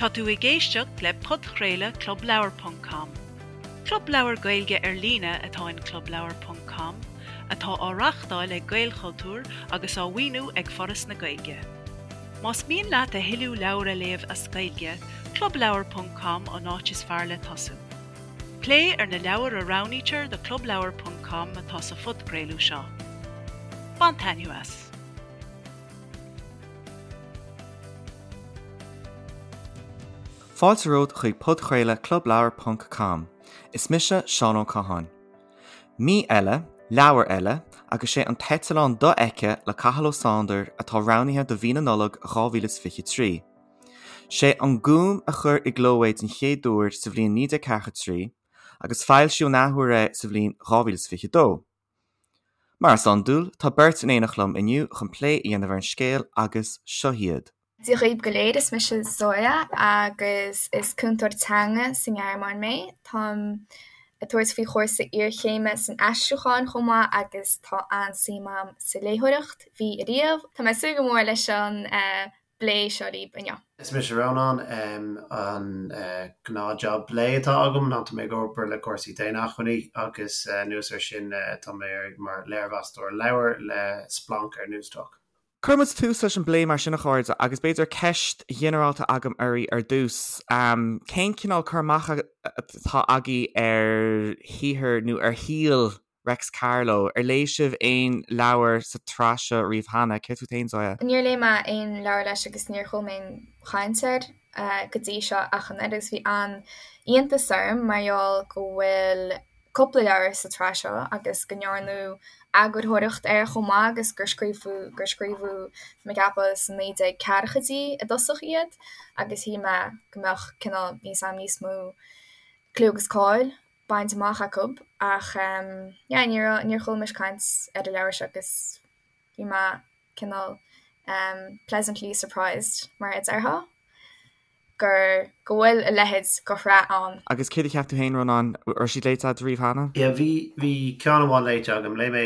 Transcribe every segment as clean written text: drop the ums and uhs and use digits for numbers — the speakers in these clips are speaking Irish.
Tá tú ag éisteacht le podchraoladh Club Leabhar ponc com. Club leabhar Gaeilge ar líne atá in Club Leabhar ponc com, atá á reáchtáil ag Gaelchultúr agus á mhaoiniú ag Foras na Gaeilge. Más mian leat a thuilleadh leabhar a léamh as Gaeilge, Club Leabhar ponc com an áit is fearr le tosú. Plé ar na leabhair a roghnaítear do Club Leabhar ponc com atá sa phodchraoladh seo. Bain taitneamh as! Fáilte romhat chuig podchraoladh Club Leabhar ponc com. Is mise Seán Ó Catháin. Mí eile, leabhar eile, agus sé An tEiteallán Dofheicthe le Cathal Ó Sándair atá roghnaithe do mhí na Nollag 2023. Sé An Gúm a chuir i gcló é den chéad uair sa bhliain 1943 agus foilsíodh an athuair é sa bhliain 2022. Mar is iondúil, tá beirt in éineacht liom inniu chun plé a dhéanamh ar an scéal agus seo hiad. Dia dhaoibh go léir, is mise Zoya agus is cúntóir teanga sa nGearmáin mé. Táim ag tabhairt faoi chúrsa iarchéime san aistriúchán chomh maith agus tá an-suim agam sa léitheoireacht, bhí ariamh. Tá mé ag súil go mór leis an bplé seo libh inniu. Is mise Rónán. An gnáthjab lae atá agam ná tá mé ag obair le cúrsaí daonacmhainní agus anuas air sin tá mé mar léirmheastóir leabhar le Splanc ar Newstalk. Cuirfidh muid tús leis an bplé mar sin a chairde agus b'fhéidir ceist ghinearálta agam oraibh ar dtús. Cén cineál cur amach atá agaibh ar shaothar nó ar shaol Reics Carló, Ar léigh sibh aon leabhar sa tsraith seo riamh cheana? Céard fút féin, Zoya? Níor léigh mé aon leabhar leis agus níor chuala mé aon chaint air go dtí seo ach an oiread agus bhí an-iontas orm mar gheall go bhfuil cúpla leabhar sa tsraith seo agus go ndearnadh eagarthóireacht air chomh maith agus gur scríobhadh gur scríobhadh tá mé ag ceapadh sna 1940idí i dtosach iad agus shíl mé go mbeadh cineál níos am níos mó clú agus cáil bainte amach acu ach yeah ní raibh, níor chuala mise caint ar an leabhar seo agus bhí mé cineál pleasantly surprised mar a déarfá gur go bhfuil a leithéid de shraith ann. Agus céard a cheap tú féin, Rónán? Raibh siad léite agat riamh cheana? Yeah bhí, bhí ceann amháin léite agam. Léigh mé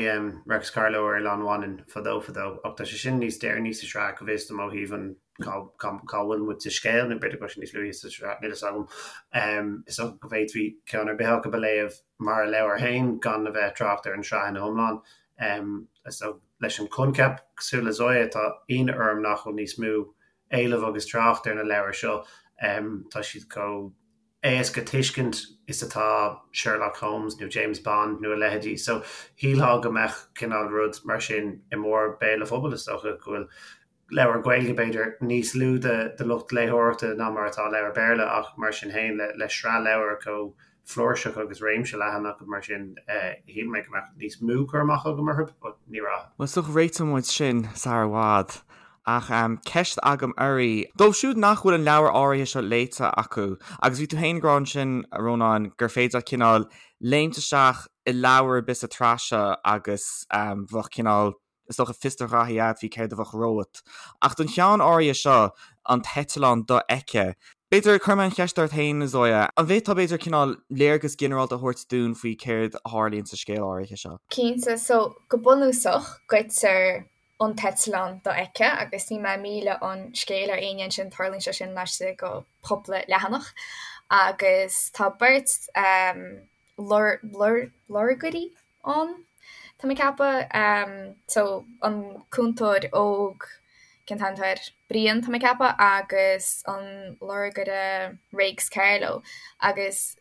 Reics Carló ar Oileán Mhanann fadó fadó ach tá sé sin níos deireanaí sa sraith go bhfios dom ó thaobh an cá bhfuil muid sa scéal, nó b'fhéidir go bhfuil sé níos luaithe sa tsraith, níl a fhios agam. Is dócha go bhféadfaí ceann ar bith acu a léamh mar a leabhar féin gan a bheith ag trácht ar an tsraith ina hiomlán. Is dócha leis an coincheap, cosúil le Zoya, tá ionadh orm nach bhfuil níos mó éileamh agus trácht ar na leabhair seo. Tá siad chomh éasca tuiscint is atá Sherlock Holmes nó James Bond nó a leithéidí. So shílfeá go mbeadh cineál rud mar sin i mbarr béal an phobail, is dócha go bhfuil leabhar Gaeilge, b'fhéidir, níos lú de lucht léitheoireachta ná mar atá leabhar Béarla ach mar sin féin, le sraith leabhar chomh flúirseach agus réimse leathan acu mar sin, shíl mé go mbeadh níos mó cur amach agam orthu, but ní raibh. Bhuel, is dócha réiteoidh muid sin sar i bhfad. Ach ceist agam oraibh, dóibh siúd nach bhfuil an leabhar áirithe seo léite acu, agus bhí tú féin ag rá ansin, a Rónáin, gur féidir leat cineál léimt isteach i leabhar ar bith sa tsraith seo agus bheadh cineál, Is dócha fios do ghraithí agat faoi céard a bheadh romhat. Ach don cheann áirithe seo, an tEiteallán Dofheicthe, b'fhéidir, cuirfidh mé an cheist ort féin, Zoya, an bhféadfá b'fhéidir cineál léargas ginearálta a thabhairt dúinn faoi céard a tharlaíonn sa scéal áirithe seo? Cinnte. So, go bunúsach, goidtear an t-eitleán dofheicthe agus níl mé ag milleadh an scéil ar éinne ansin, tarlaíonn sé sin laistigh de chúpla leathanach. Agus tá beirt lorgairí ann, tá mé ag ceapadh. So, an cúntóir óg, cén t-ainm atá air? Brian, tá mé ag ceapadh, agus an lorgaire Réics Carló. Agus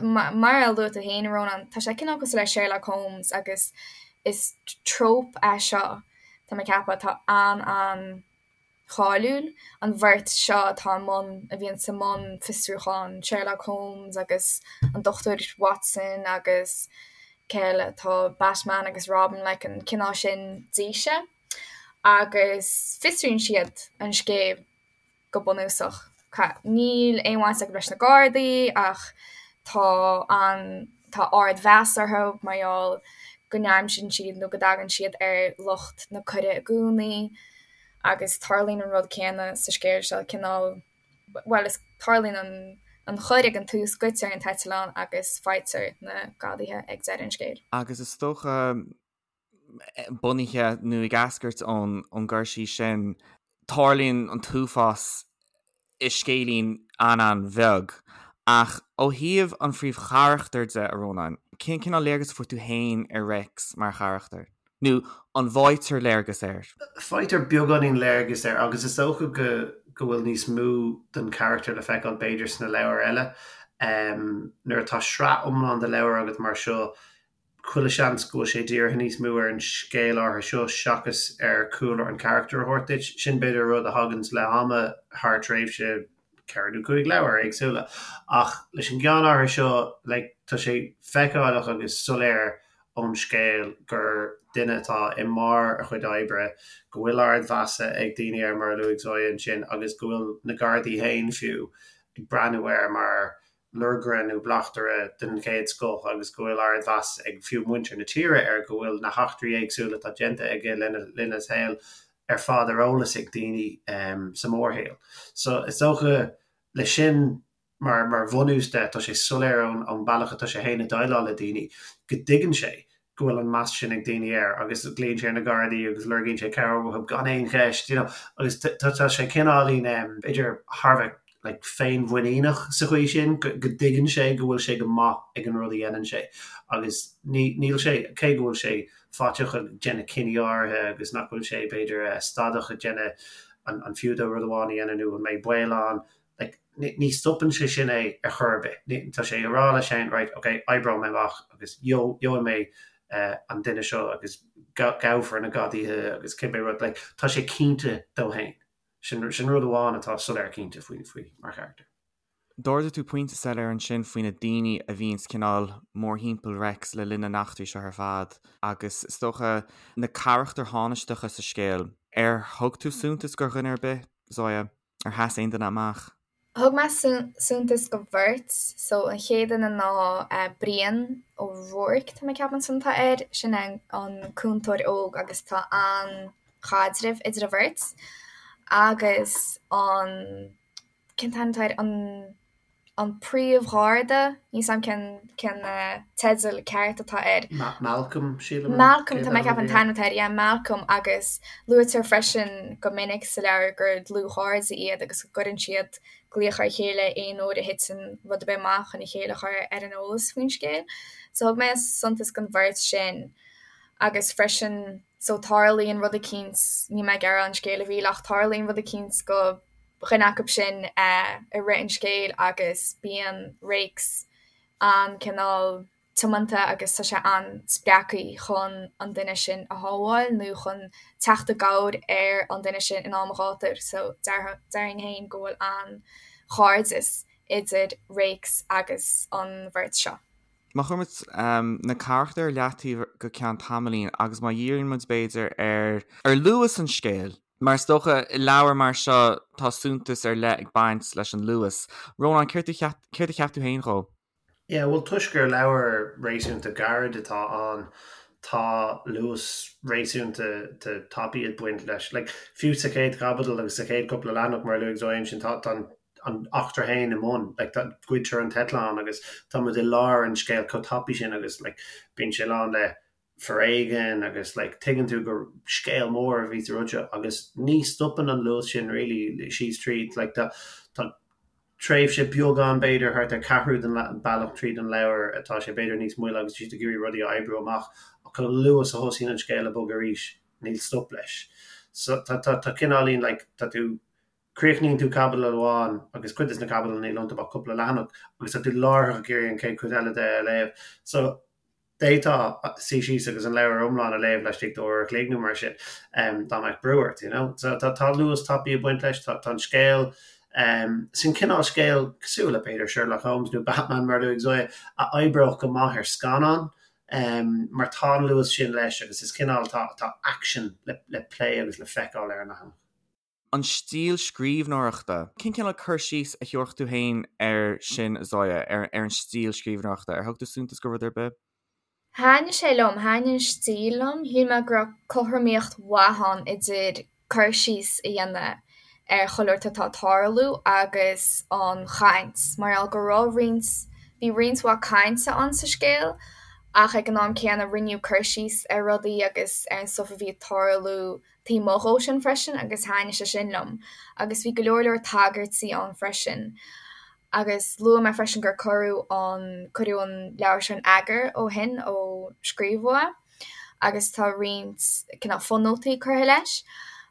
mar a luaigh tú féin, a Rónán, tá sé cineál cosúil le Sherlock Holmes agus is trope é seo, tá mé ag ceapadh, atá an-an. cháiliúil, an bheirt seo atá i mbun, a bhíonn i mbun fiosrúcháin, Sherlock Holmes agus an Dochtúir Watson agus cé eile, tá Batman agus Robin, like an cineál sin d'fhíse. Agus fiosraíonn siad an scéal go bunúsach. Níl aon bhaint acu leis na Gardaí ach tá an, tá ardmheas orthu mar gheall go n-aimsíonn siad nó go dtagann siad ar lucht na coire i gcónaí. Agus tarlaíonn an rud céanna sa scéal seo, cineál, bhuel, is tarlaíonn an an choir ag an tús, goidtear an t-eitleán agus faightear na gadaithe ag deireadh an scéil. Agus is dócha, bunaithe nó ag eascairt ón gcur síos sin, tarlaíonn an t-uafás. i scéilín an-an-bheag. Ach ó thaobh an phríomhcharachtair de, a Rónáin, cén cineál léargas a fuair tú féin ar Réics mar charachtar? Nó an bhfaightear léargas air? Faightear beagáinín léargas air agus is dócha go go bhfuil níos mó den charachtar le feiceáil b'fhéidir sna leabhair eile. Nuair atá sraith iomlán de leabhair agat mar seo, chuile sheans go bhfuil sé dírithe níos mó ar an scéal áirithe seo seachas ar chúlra an charachtair a thabhairt duit. Sin b'fhéidir rud a thaganns le ham thar tréimhse ceithre nó cúig leabhar éagsúla. Ach leis an gceann áirithe seo, like, tá sé feiceálach agus soiléir ón scéal gur duine atá i mbarr a chuid oibre, go bhfuil ardmheas ag daoine air mar a luaigh Zoya ansin agus go bhfuil na Gardaí féin fiú ag breathnú air mar lorgaire nó bleachtaire den chéad scoth agus go bhfuil ardmheas ag fiú muintir na tíre air, go bhfuil na heachtraí éagsúla atá déanta aige lena linn a shaoil ar fad ar eolas ag daoine sa mhórshaol. So is dócha leis sin mar mar bhunús de, tá sé soiléir ón ón bealach atá sé féin ag déileáil le daoine go dtuigeann sé go bhfuil an meas sin ag daoine air agus glaonn sé ar na Gardaí agus lorgaíonn sé cabhair uathu gan aon cheist, you know, agus tá sé cineáilín, b'fhéidir, thar a bheith like féinmhuiníneach sa chaoi sin, go dtuigeann sé go bhfuil sé go maith ag an rud a dhéanann sé agus ní, níl sé, cé go bhfuil sé faiteach ag déanamh cinní áirithe agus nach bhfuil sé, b'fhéidir, stadach ag déanamh an, an fiú dó rud amháin a dhéanamh nó an mbeidh baol ann, like, ní stopann sé sin é ar chor ar bith. Ní, tá sé ag rá leis féin, right, ok, oibreoidh mé amach agus gheobhaidh mé an duine seo agus gabhfar na gadaithe agus cibé rud, like, tá sé cinnte dó féin. Sin, sin rud amháin atá soiléir cinnte faoi, faoi mar charachtar. D'ardaigh tú pointe soiléir ansin faoi na daoine a bhíonns cineál mórthimpeall Reics le linn na n-eachtraí seo ar fad agus is dócha na carachtair thánaisteacha sa scéal. Ar thug tú suntas do dhuine ar bith, Zoya? Ar sheas aon duine amach? Thug mé suntas do bheirt. So an chéad duine ná Brian Ó Ruairc, tá mé ag ceapadh an t-ainm atá air. Sin é an cúntóir óg agus tá an-chaidreamh idir an bheirt. Agus an, cén t-ainm atá air, an an príomhgharda, níl 's a'm cén cén teideal ceart atá air. Malcolm, sílim. Malcolm, tá mé ag ceapadh an t-ainm atá air, yeah, Malcolm agus luaitear freisin go minic sa leabhar gur dlúthchairde iad agus go gcuireann siad glaoch ar a chéile aon uair a thiteann rud ar bith amach chun a chéile a chur ar an eolas faoin scéal. So thug mé suntas don bheirt sin agus freisin so tarlaíonn rud eicínt, níl mé ag iarraidh an scéal a mhilleadh ach tarlaíonn rud eicínt do dhuine acu sin i rith an scéil agus bíonn Réics an-cineál tiomanta agus tá sé an-spreagtha chun an duine sin a shábháil nó chun teacht i gcabhair ar an duine sin in am an ghátair. So déarfainn féin go bhfuil an-chairdeas idir Réics agus an bheirt seo. Má chuireann muid na carachtair ar leataobh go ceann tamaillín agus má dhíríonn muid b'fhéidir ar ar luas an scéil, Mar is dócha, i leabhar mar seo tá suntas ar leith ag baint leis an luas. Rónán, céard a cheap tú féin dhó? Yeah, bhuel toisc gur leabhar réasúnta gairid atá ann, tá luas réasúnta tapaidh ag baint leis. Like, fiú sa chéad chaibidil agus sa chéad cúpla leathanach, mar a luaigh Zoya ansin, tá tá an eachtra féin i mbun, like, tá, goidtear an t-eitleán agus tá muid i lár an scéil chomh tapaidh sin agus like, bíonn sé lán le foréigean agus like tuigeann tú gur scéal mór a bhí sa rud seo agus ní stopann an luas sin really síos tríd like tá tá tréimhse beag ann b'fhéidir thart ar ceathrú den bealach tríd an leabhar atá sé b'fhéidir níos moille agus siad ag iarraidh rudaí a oibriú amach ach chomh luath is a thosaíonn an scéal ag bogadh arís níl stop leis so tá tá tá cineáilín like tá tú críochnaíonn tú caibidil amháin agus cuid de na caibidil níl iontu ach cúpla leathanach agus tá tú láithreach ag iarraidh an chéad chuid eile de a léamh so D'fhéadfá suí síos agus an leabhar iomlán a léamh laistigh d'uair a chloig nó mar sin, dá mbeadh brú ort, you know. So tá tá luas tapaidh ag baint leis, tá tá an scéal, sin cineál scéal cosúil le b'fhéidir Sherlock Holmes nó Batman mar a luaigh Zoya, a oibreodh go maith ar scannán, mar tá an luas sin leis agus is cineál tá tá action le le plé agus le feiceáil ar an leathanach. An stíl scríbhneoireachta. Cén cineál cur síos a thabharfadh tú féin air sin, Zoya, ar an stíl scríbhneoireachta? Ar thug tú suntas do rud ar bith? Thaitnigh sé liom, thaitnigh an stíl liom. Shíl mé go raibh cothromaíocht mhaith ann idir cur síos a dhéanamh ar chuile shórt atá ag tarlú agus an chaint, mar gheall go raibh roinnt, bhí roinnt mhaith cainte ann sa scéal ach ag an am céanna rinneadh cur síos ar rudaí agus ar an stuif a bhí ag tarlú. taobh amuigh dhó sin freisin agus thaitnigh sé sin liom. Agus bhí go leor leor tagairtí ann freisin. Agus luaigh mé freisin gur cuireadh an, cuireadh an leabhar seo in eagar ó shin, ó scríobhadh é, agus tá roinnt cineál fonótaí curtha leis.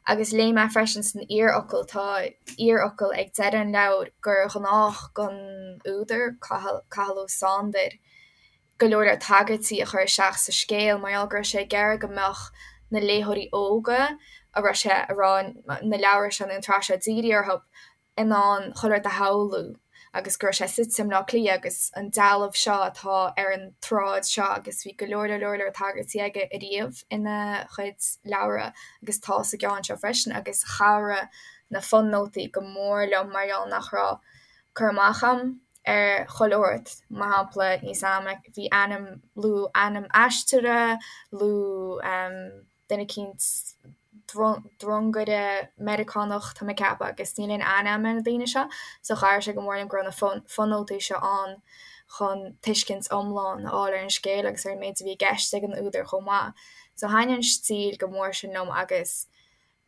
Agus léigh mé freisin san iarfhocal, tá iarfhocal ag deireadh an leabhair, gur ghnách don údar, Cathal, Cathal Ó Sándair, go leor leor tagairtí a chur isteach sa scéal mar gheall go raibh sé ag iarraidh go mbeadh na léitheoirí óga a raibh sé a raibh na leabhair seo nó an tsraith seo dírithe orthu in ann chuile rud a shamhlú agus go raibh sé suite i mBleá Cliath agus an dealbh seo atá ar an tsráid seo agus bhí go leor leor leor tagairtí aige ariamh ina chuid leabhra agus tá sa gceann seo freisin agus chabhraigh na fonótaí go mór liom mar gheall nach raibh cur amach a'm ar chuile shórt, mar shampla, níl 's a'm, bhí ainm, luadh ainm aisteora, luadh duine eicínt, drongaire Meiriceánach, tá mé ag ceapadh, agus níl aon aithne a'm ar na daoine seo, so chabhraigh sé go mór liom go raibh na fonótaí seo ann chun tuiscint iomlán a fháil ar an scéal agus ar an méid a bhí i gceist ag an údar chomh maith. So thaitnigh an stíl go mór sin liom agus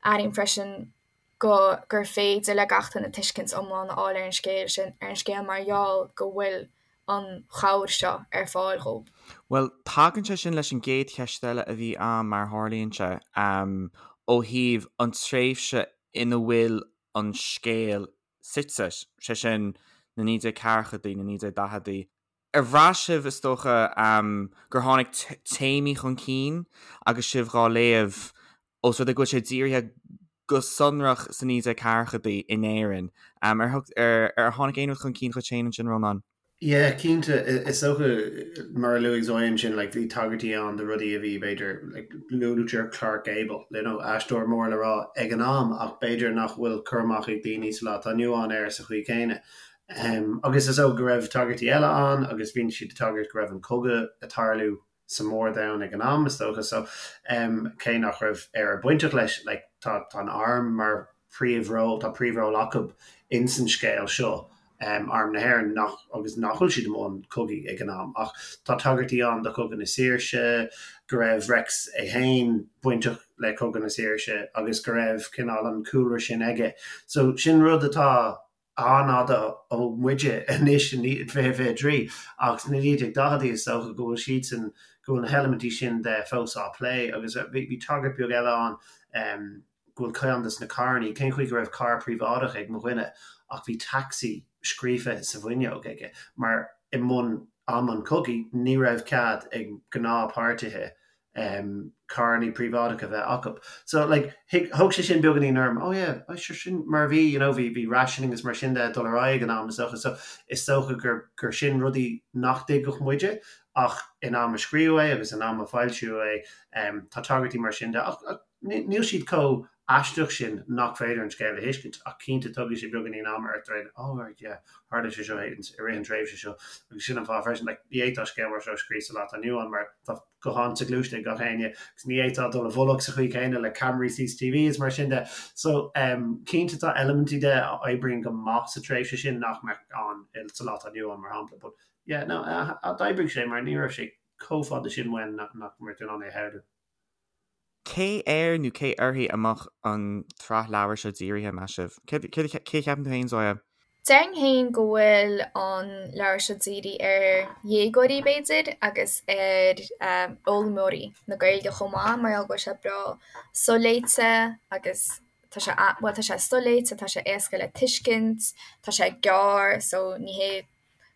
airím freisin go gur féidir le gach duine tuiscint iomlán a fháil ar an scéal sin, ar an scéal mar gheall go bhfuil an chabhair seo ar fáil dhóibh. Bhuel, tagann sé sin leis an gcéad cheist eile a bhí a'm, mar a tharlaíonn sé, ó thaobh an tréimhse ina bhfuil an scéal suite, sé sin, na 1940idí, na 1940idí. Ar bhraith sibh, is dócha, gur tháinig téamaí chun cinn agus sibh dhá léamh, ós rud é go bhfuil sé dírithe go sonrach sna 1940idí in Éirinn? Ar ar tháinig aon rud chun cinn dhuit féin ansin, Rónán? Yeah, cinnte. Is dócha, mar a luaigh Zoya ansin, like, bhí tagairtí ann do rudaí a bhí, b'fhéidir, like, luaitear Clark Gable, you know, aisteoir mór le rá ag an am, ach b'fhéidir nach bhfuil cur amach ag daoine sa lá atá inniu ann air sa chaoi chéanna. Agus is dócha go raibh tagairtí eile ann agus bhí siad ag tagairt go raibh an cogadh ag tarlú sa mór-domhan ag an am, is dócha. So, cé nach raibh Éire bainteach leis, like, tá tá an arm mar príomhról, tá príomhról acu ins an scéal seo, Arm na hÉireann, nach, agus nach bhfuil siad i mbun cogaidh ag an am. Ach tá tagairtí ann do Chogadh na Saoirse, go raibh Reics é féin bainteach le Cogadh na Saoirse agus go raibh cineál an cúlra sin aige. So, sin rud atá an-fhada ó muide anois in 2023 ach sna 1940idí is dócha go bhfuil siadsan, go bhfuil na heilimintí sin de fós á plé agus bhí tagairt beag eile ann go bhfuil ceann de na carrannaí, cén chaoi go raibh carr príobháideach ag mo dhuine ach bhí taxi scríofa sa bhfuinneog aige mar i mbun am an chogaidh ní raibh cead ag gnáthpháirtithe carrannaí príobháideacha a bheith acu. So like thóg sé sin beagáinín orm, oh yeah, oh sure sin mar a bhí, you know, bhí bhí rationing agus mar sin de ag dul ar aghaidh ag an am is dócha. So is dócha gur gur sin rudaí nach dtuigfeadh muide ach in am a scríobhadh é agus in am a foilsíodh é tá tagairtí mar sin de ach ach níl siad chomh aisteach sin nach féidir an scéal a thuiscint ach cinnte tógfaidh sé beagáinín ama ort rá oh right yeah tharla sé seo i rith an tréimhse seo agus sin an fáth freisin like ní fhéadfá scéal mar seo a scríobh sa lá atá inniu ann mar tá guthán soghluaiste ag gach éinne agus ní fhéadfá dul i bhfolach sa chaoi chéanna le ceamaraí CCTV is mar sin de so um, cinnte tá eilimintí de a oibríonn go maith sa tréimhse sin nach mbeadh ann sa lá atá inniu ann mar shampla but yeah no d'oibrigh sé mar ní raibh sé chomh fada sin uainn nach mbeadh tú in ann é a shamhlú. Cé air nó cé uirthi a mbeadh an tsraith leabhar seo dírithe, meas sibh? Cé a cheapann tú féin, Zoya? Déarfainn féin go bhfuil an leabhar seo dírithe ar dhéagóirí, b'fhéidir, agus ar fhoghlaimeoirí na Gaeilge chomh maith, mar gheall go bhfuil sé breá soléite agus tá sé, bhuel, tá sé soléite, tá sé éasca le tuiscint, tá sé gearr, so ní hé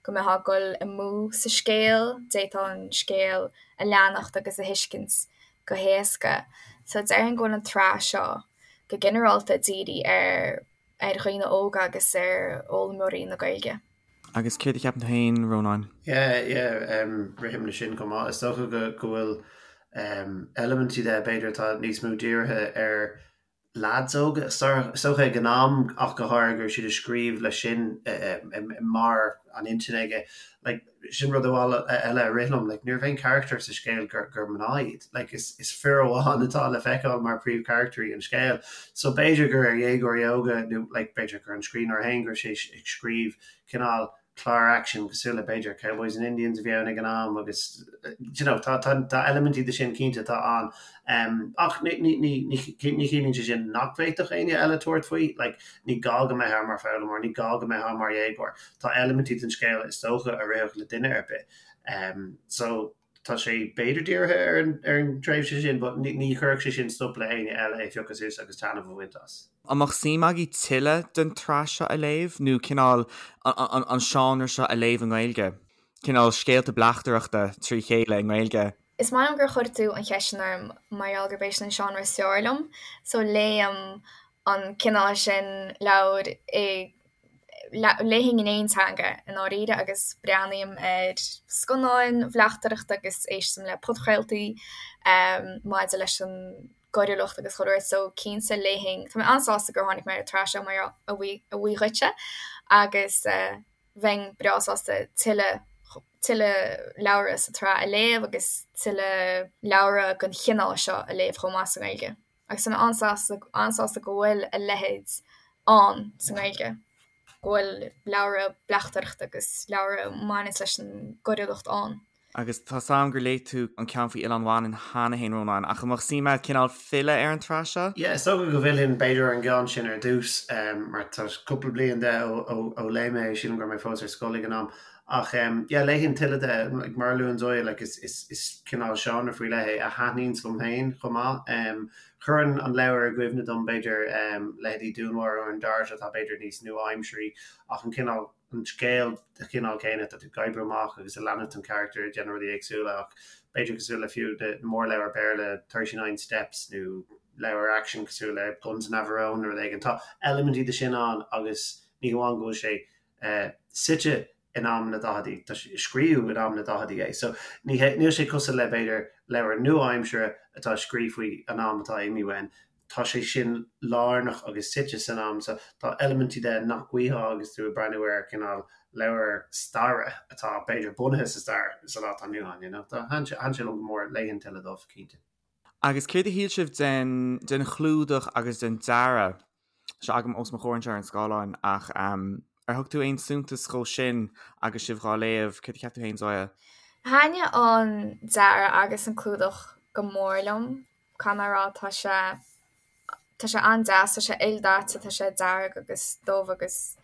go mbeifeá ag dul amú sa scéal, d'fhéadfá an scéal a leanacht agus a thuiscint go héasca. So déarfainn go bhfuil an tsraith seo go ginearálta dírithe ar ar dhaoine óga agus ar fhoghlaimeoirí na Gaeilge. Agus céard a cheapann tú féin, Rónáin? Yeah, yeah, rithim leis sin chomh maith. Is dócha go go bhfuil eilimintí de b'fhéidir atá níos mó dírithe ar leaids óga, is dócha ag an am ach go háirithe go raibh siad ag scríobh leis sin i mbarr an intinn aige. Like, sin rud eile a rith liom, like, ní raibh aon charachtar sa scéal gur, gur mná iad. Like, is, is fir amháin atá le feiceáil mar príomhcharachtarí an scéil. So b'fhéidir gur ar dhéagóirí óga nó like, b'fhéidir gur an scríbhneoir féin go raibh sé ag scríobh cineál. clár aicsin cosúil le b'fhéidir Cowboys and Indians a bhí ann ag an am agus you know tá tá tá eilimintí de sin cinnte atá ann. Um, ach ní ní ní ní ní chiallaíonn sé sin nach bhféadfadh éinne eile tabhairt faoi, like ní gá go mbeifeá mar foghlaimeoir, ní gá go mbeifeá mar dhéagóir. Tá eilimintí den scéal is dócha a rithfeadh le duine ar bith. Um, so tá sé b'fhéidir dírithe ar an ar an tréimhse sin but ní ní chuirfeadh sé sin stop le éinne eile é a phiocadh suas agus taitneamh a bhaint as. An mbeadh suim agaibh tuilleadh den tsraith seo a léamh nó cineál an an seánra seo a léamh i nGaeilge? Cineál scéalta bleachtaireachta trí chéile i nGaeilge? Is maith liom gur chuir tú an cheist sin orm mar gheall gurb é sin an seánra is fearr liom so léim an cineál sin leabhair i Léifinn in aon teanga i ndáiríre agus breathnaím ar scannáin bhleachtaireachta agus éistim le podchraoltaí maidir leis an gcoiriúlacht agus chuile shórt so cinnte léifinn, tá mé an-sásta gur tháinig mé ar an tsraith seo mar a bhuí dhuitse agus bheinn breá sásta tuilleadh tuilleadh leabhra sa tsraith a léamh agus tuilleadh leabhra den chineál seo a léamh chomh maith sa nGaeilge. Agus tá mé an-sásta, an-sásta go bhfuil a leithéid ann sa nGaeilge, go bhfuil leabhra bleachtaireachta agus leabhra a bhaineanns leis an gcoiriúlacht ann. Agus tá 's a'm gur léigh tú an ceann faoi Oileán Mhanann cheana fhéin, Rónán, ach an mbeadh suim a'd cineál filleadh ar an tsraith seo? Yeah, is dócha go bhfillfinn b'fhéidir ar an gceann sin ar dtús, mar tá cúpla bliain de ó léigh mé é, sílim go raibh mé fós ar scoil ag an am. Ach yeah, léifinn tuilleadh de, like, mar a luann Zoya, like, is, is, is cineál seánra faoi leith é a thaitníonns liom féin chomh maith. Cuireann an leabhar i gcuimhne dom, b'fhéidir, leithéidí Dúnmharú ar an Dart atá b'fhéidir níos nua-aimsirí ach an cineál, an scéal de chineál céanna, tá tú ag oibriú amach agus ag leanúint an charachtar ag déanamh rudaí éagsúla ach b'fhéidir cosúil le fiú na mórleabhair Béarla, 39 Steps nó leabhar aicsin cosúil le Guns of Navarone nó rud éigin. Tá eilimintí de sin ann agus ní hamháin go bhfuil sé suite in am na daicheadaí, tá sé, scríobhadh in am na daicheadaí é. So ní hé, níl sé cosúil le b'fhéidir leabhar nua-aimsire atá scríofa faoi an am atá imithe uainn. Tá sé sin lárnach agus suite san am so tá eilimintí de nach bhfaighfeá agus tú ag breathnú ar cineál leabhar staire atá b'fhéidir bunaithe sa stair sa lá atá inniu ann, you know. Tá, thaitin sé, thaitin sé liom go mór, léifinn tuilleadh dóibh, cinnte. Agus céard a shíl sibh den, den chlúdach agus den dearadh? Tá sé agam os mo chomhair anseo ar an scáileán ach ar thug tú aon suntas dhó sin agus sibh dhá léamh? Céard a cheap tú féin, Zoya? Thaitnigh an dearadh agus an clúdach go mór liom, caithfidh mé a rá. Tá sé tá sé an-deas, tá sé ildaite, tá sé dearg agus dubh agus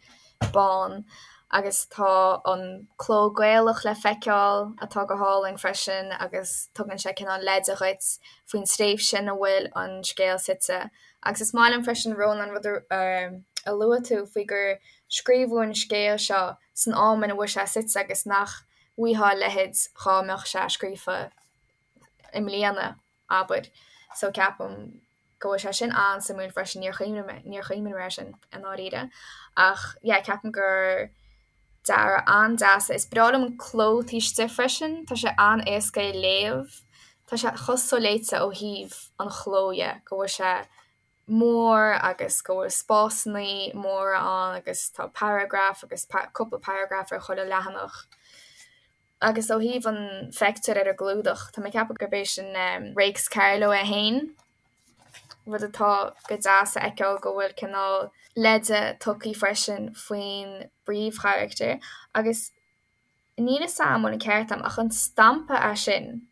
bán agus tá an cló Gaelach le feiceáil atá go hálainn freisin agus tugann sé cineál leide dhuit faoin tréimhse ina bhfuil an scéal suite. Agus is maith liom freisin, Rónán, rud a luaigh tú faoi gur scríobhadh an scéal seo san am ina bhfuil sé suite agus nach bhfaighfeá a leithéid dhá mbeadh sé scríofa i mbliana, abair. So ceapaim go bhfuil sé sin an-suimiúil freisin, níor chuimhnigh mé, níor chuimhnigh mé air sin i ndáiríre. Ach yeah, ceapaim gur dearadh an-deas é. Is breá liom an cló taobh istigh freisin, tá sé an-éasca é léamh. Tá sé chomh soléite ó thaobh an chló dhe, go bhfuil sé mór agus go bhfuil spásannaí móra ann agus tá paragraf agus cúpla paragraf ar chuile leathanach. Agus ó thaobh an phictiúr ar an gclúdach, tá mé ag ceapadh gurb é sin Réics Carló é féin, rud atá go deas a fheiceáil go bhfuil cineál leide tugtha freisin faoin bpríomhcharachtar. Agus níl 'fhios a'm an bhfuil an ceart a'm ach an stampa é sin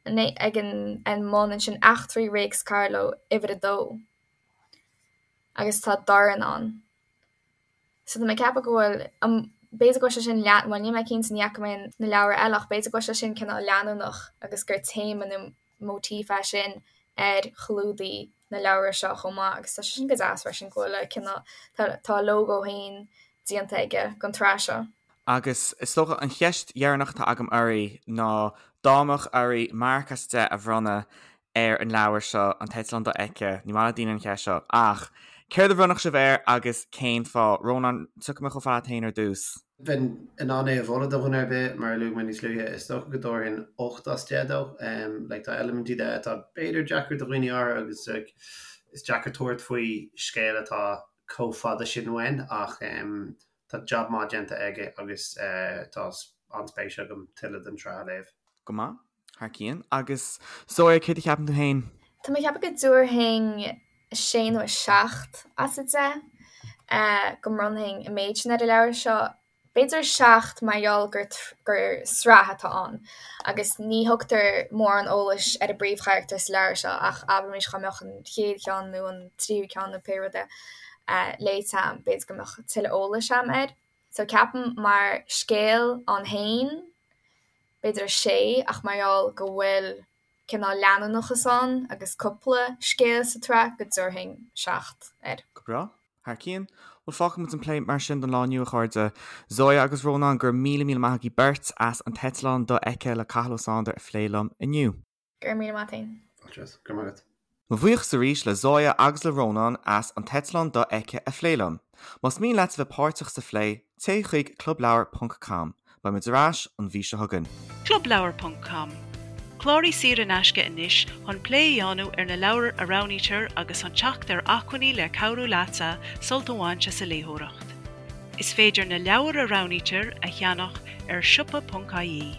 ag an an mbun ansin Eachtraí Réics Carló uimhir a dó agus tá dorn ann. So tá mé ag ceapadh go bhfuil, b'fhéidir go bhfuil sé sin lean, bhuel níl mé cinnte, ní fhaca mé na leabhra eile ach b'fhéidir go bhfuil sé sin cineál leanúnach agus gur téama nó móitíf é sin ar chlúdaigh na leabhra seo chomh maith agus tá sé sin go deas freisin go bhfuil a cineál, tá a lógó féin déanta aige don tsraith seo. Agus is dócha an cheist dheireanach atá agam oraibh ná dá mbeadh oraibh marc as 10 a bhronnadh ar an leabhar seo, An tEitleán Dofheicthe, ní maith le daoine an cheist seo, ach céard a bhronnfadh sibh air agus cén fáth? Rónán, tiocfaidh mé chomh fada leat féin ar dtús. Bheinn in ann é a mholadh do dhuine ar bith, mar a luaigh mé níos luaithe, is dócha go dtabharfainn 8 as 10 dó. Like, tá eilimintí de atá b'fhéidir deacair do dhaoine áirithe agus like, is deacair tabhairt faoi scéal atá chomh fada sin uainn ach tá jab maith déanta aige agus tá an-spéis agam tuilleadh den tsraith a léamh. Go maith. Thar cionn. Agus Zoya, céard a cheapann tú féin? Tá mé ag ceapadh go dtabharfainn sé nó 7 as 10, go mbronnfainn an méid sin ar an leabhar seo. B'fhéidir 7 mar gheall gur gur sraith atá ann agus ní thugtar mórán eolais ar an bpríomhcharachtar sa leabhar seo ach abraimis dá mbeadh an chéad cheann nó an tríú ceann nó pé rud é léite a'm, b'fhéidir go mbeadh tuilleadh eolais a'm air. So ceapaim mar scéal ann féin, b'fhéidir 6 ach mar gheall go bhfuil cineál leanúnachas ann agus cúpla scéal sa tsraith go dtabharfainn 7 air. Go breá. Thar cionn. Bhuel, fágfaidh muid an plé mar sin don lá inniu, a chairde. Zoya agus Rónán, go raibh míle míle maith agaibh beirt as An tEitleán Dofheicthe le Cathal Ó Sándair a phlé liom inniu. Go raibh míle maith agat. Fáilte. Go raibh maith agat. Mo bhuíochas arís le Zoya agus le Rónán as An tEitleán Dofheicthe a phlé liom. Más mian leat a bheith páirteach sa phlé, téigh chuig clubleabhar ponc com. Beidh muid ar ais an mhí seo chugainn. Clubleabhar ponc com, Cláraigh saor in aisce anois chun plé a dhéanamh ar na leabhair a roghnaítear agus chun teacht ar acmhainní le cabhrú leatsa sult a bhaint as an léitheoireacht. Is féidir na leabhair a roghnaítear a cheannach ar siopa ponc ie.